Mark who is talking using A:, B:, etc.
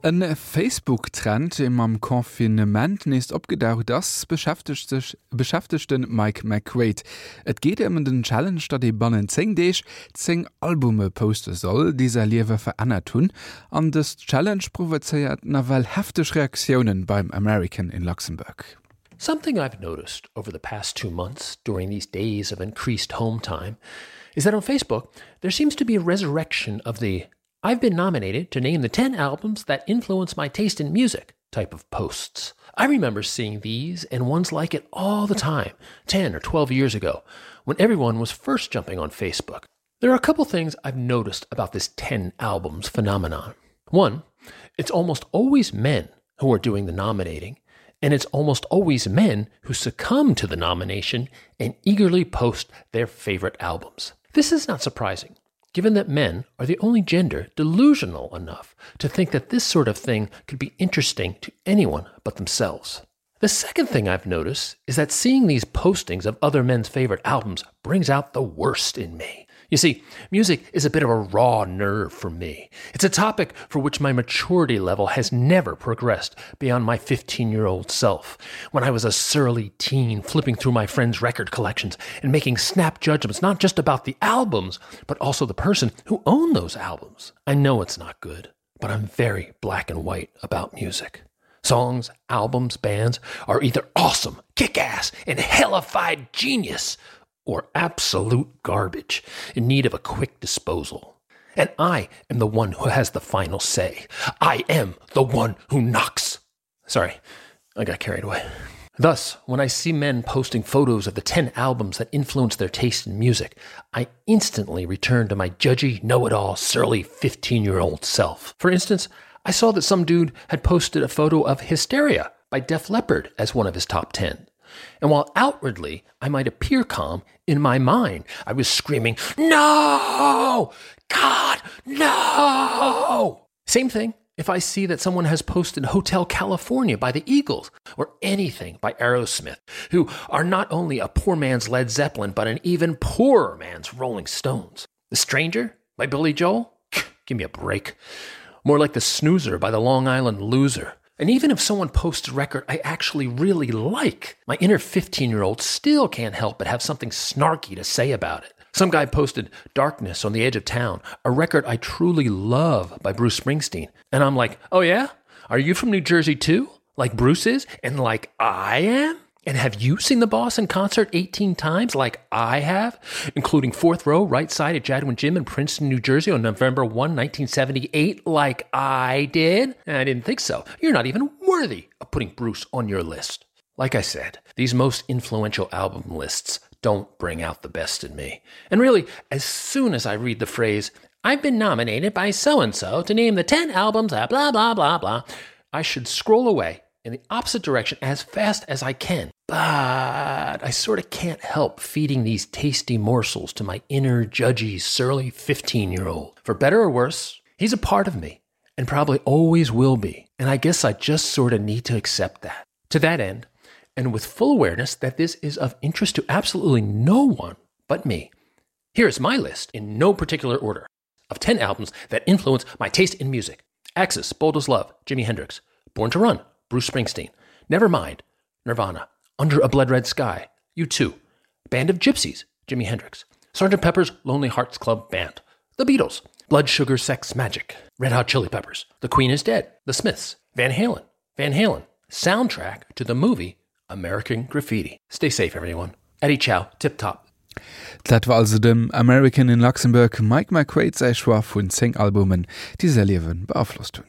A: Ein Facebook-Trend im am Konfinement ist abgedauert, das beschäftigt den Mike McQuaid. Et geht den Challenge, dat die bannen 10 Days 10 Albume posten soll, die sein Leben verändert tun. Und das Challenge provoziert nawel heftige Reaktionen beim American in Luxemburg.
B: Something I've noticed over the past 2 months during these days of increased home time is that on Facebook, there seems to be a resurrection of the "I've been nominated to name the 10 albums that influence my taste in music" type of posts. I remember seeing these and ones like it all the time, 10 or 12 years ago, when everyone was first jumping on Facebook. There are a couple things I've noticed about this 10 albums phenomenon. One, it's almost always men who are doing the nominating, and it's almost always men who succumb to the nomination and eagerly post their favorite albums. This is not surprising, given that men are the only gender delusional enough to think that this sort of thing could be interesting to anyone but themselves. The second thing I've noticed is that seeing these postings of other men's favorite albums brings out the worst in me. You see, music is a bit of a raw nerve for me. It's a topic for which my maturity level has never progressed beyond my 15-year-old self, when I was a surly teen flipping through my friends' record collections and making snap judgments not just about the albums, but also the person who owned those albums. I know it's not good, but I'm very black and white about music. Songs, albums, bands are either awesome, kick-ass, and hellified genius, or absolute garbage in need of a quick disposal. And I am the one who has the final say. I am the one who knocks. Sorry, I got carried away. Thus, when I see men posting photos of the 10 albums that influence their taste in music, I instantly return to my judgy, know-it-all, surly 15-year-old self. For instance, I saw that some dude had posted a photo of Hysteria by Def Leppard as one of his top 10. And while outwardly I might appear calm, in my mind I was screaming, "No! God, no!" Same thing if I see that someone has posted Hotel California by the Eagles, or anything by Aerosmith, who are not only a poor man's Led Zeppelin, but an even poorer man's Rolling Stones. The Stranger by Billy Joel? Give me a break. More like The Snoozer by the Long Island Loser. And even if someone posts a record I actually really like, my inner 15-year-old still can't help but have something snarky to say about it. Some guy posted Darkness on the Edge of Town, a record I truly love by Bruce Springsteen. And I'm like, oh yeah? Are you from New Jersey too? Like Bruce is? And like I am? And have you seen the boss in concert 18 times like I have? Including 4th row, right side at Jadwin Gym in Princeton, New Jersey on November 1, 1978 like I did? I didn't think so. You're not even worthy of putting Bruce on your list. Like I said, these most influential album lists don't bring out the best in me. And really, as soon as I read the phrase, "I've been nominated by so-and-so to name the 10 albums blah, blah, blah, blah," I should scroll away in the opposite direction as fast as I can. But I sort of can't help feeding these tasty morsels to my inner, judgy, surly 15-year-old. For better or worse, he's a part of me, and probably always will be. And I guess I just sort of need to accept that. To that end, and with full awareness that this is of interest to absolutely no one but me, here is my list, in no particular order, of 10 albums that influence my taste in music. Axis, Bold as Love, Jimi Hendrix. Born to Run, Bruce Springsteen. Nevermind, Nirvana. Under a Blood Red Sky, U2. Band of Gypsies, Jimi Hendrix. Sgt. Pepper's Lonely Hearts Club Band. The Beatles. Blood Sugar Sex Magic. Red Hot Chili Peppers. The Queen is Dead. The Smiths. Van Halen. Van Halen. Soundtrack to the movie American Graffiti. Stay safe, everyone. Eddie Chow, Tip Top.
A: Das war also dem American in Luxemburg Mike McQuaid sei Schwar von 10 Albumen, die sein Leben beeinflusst haben.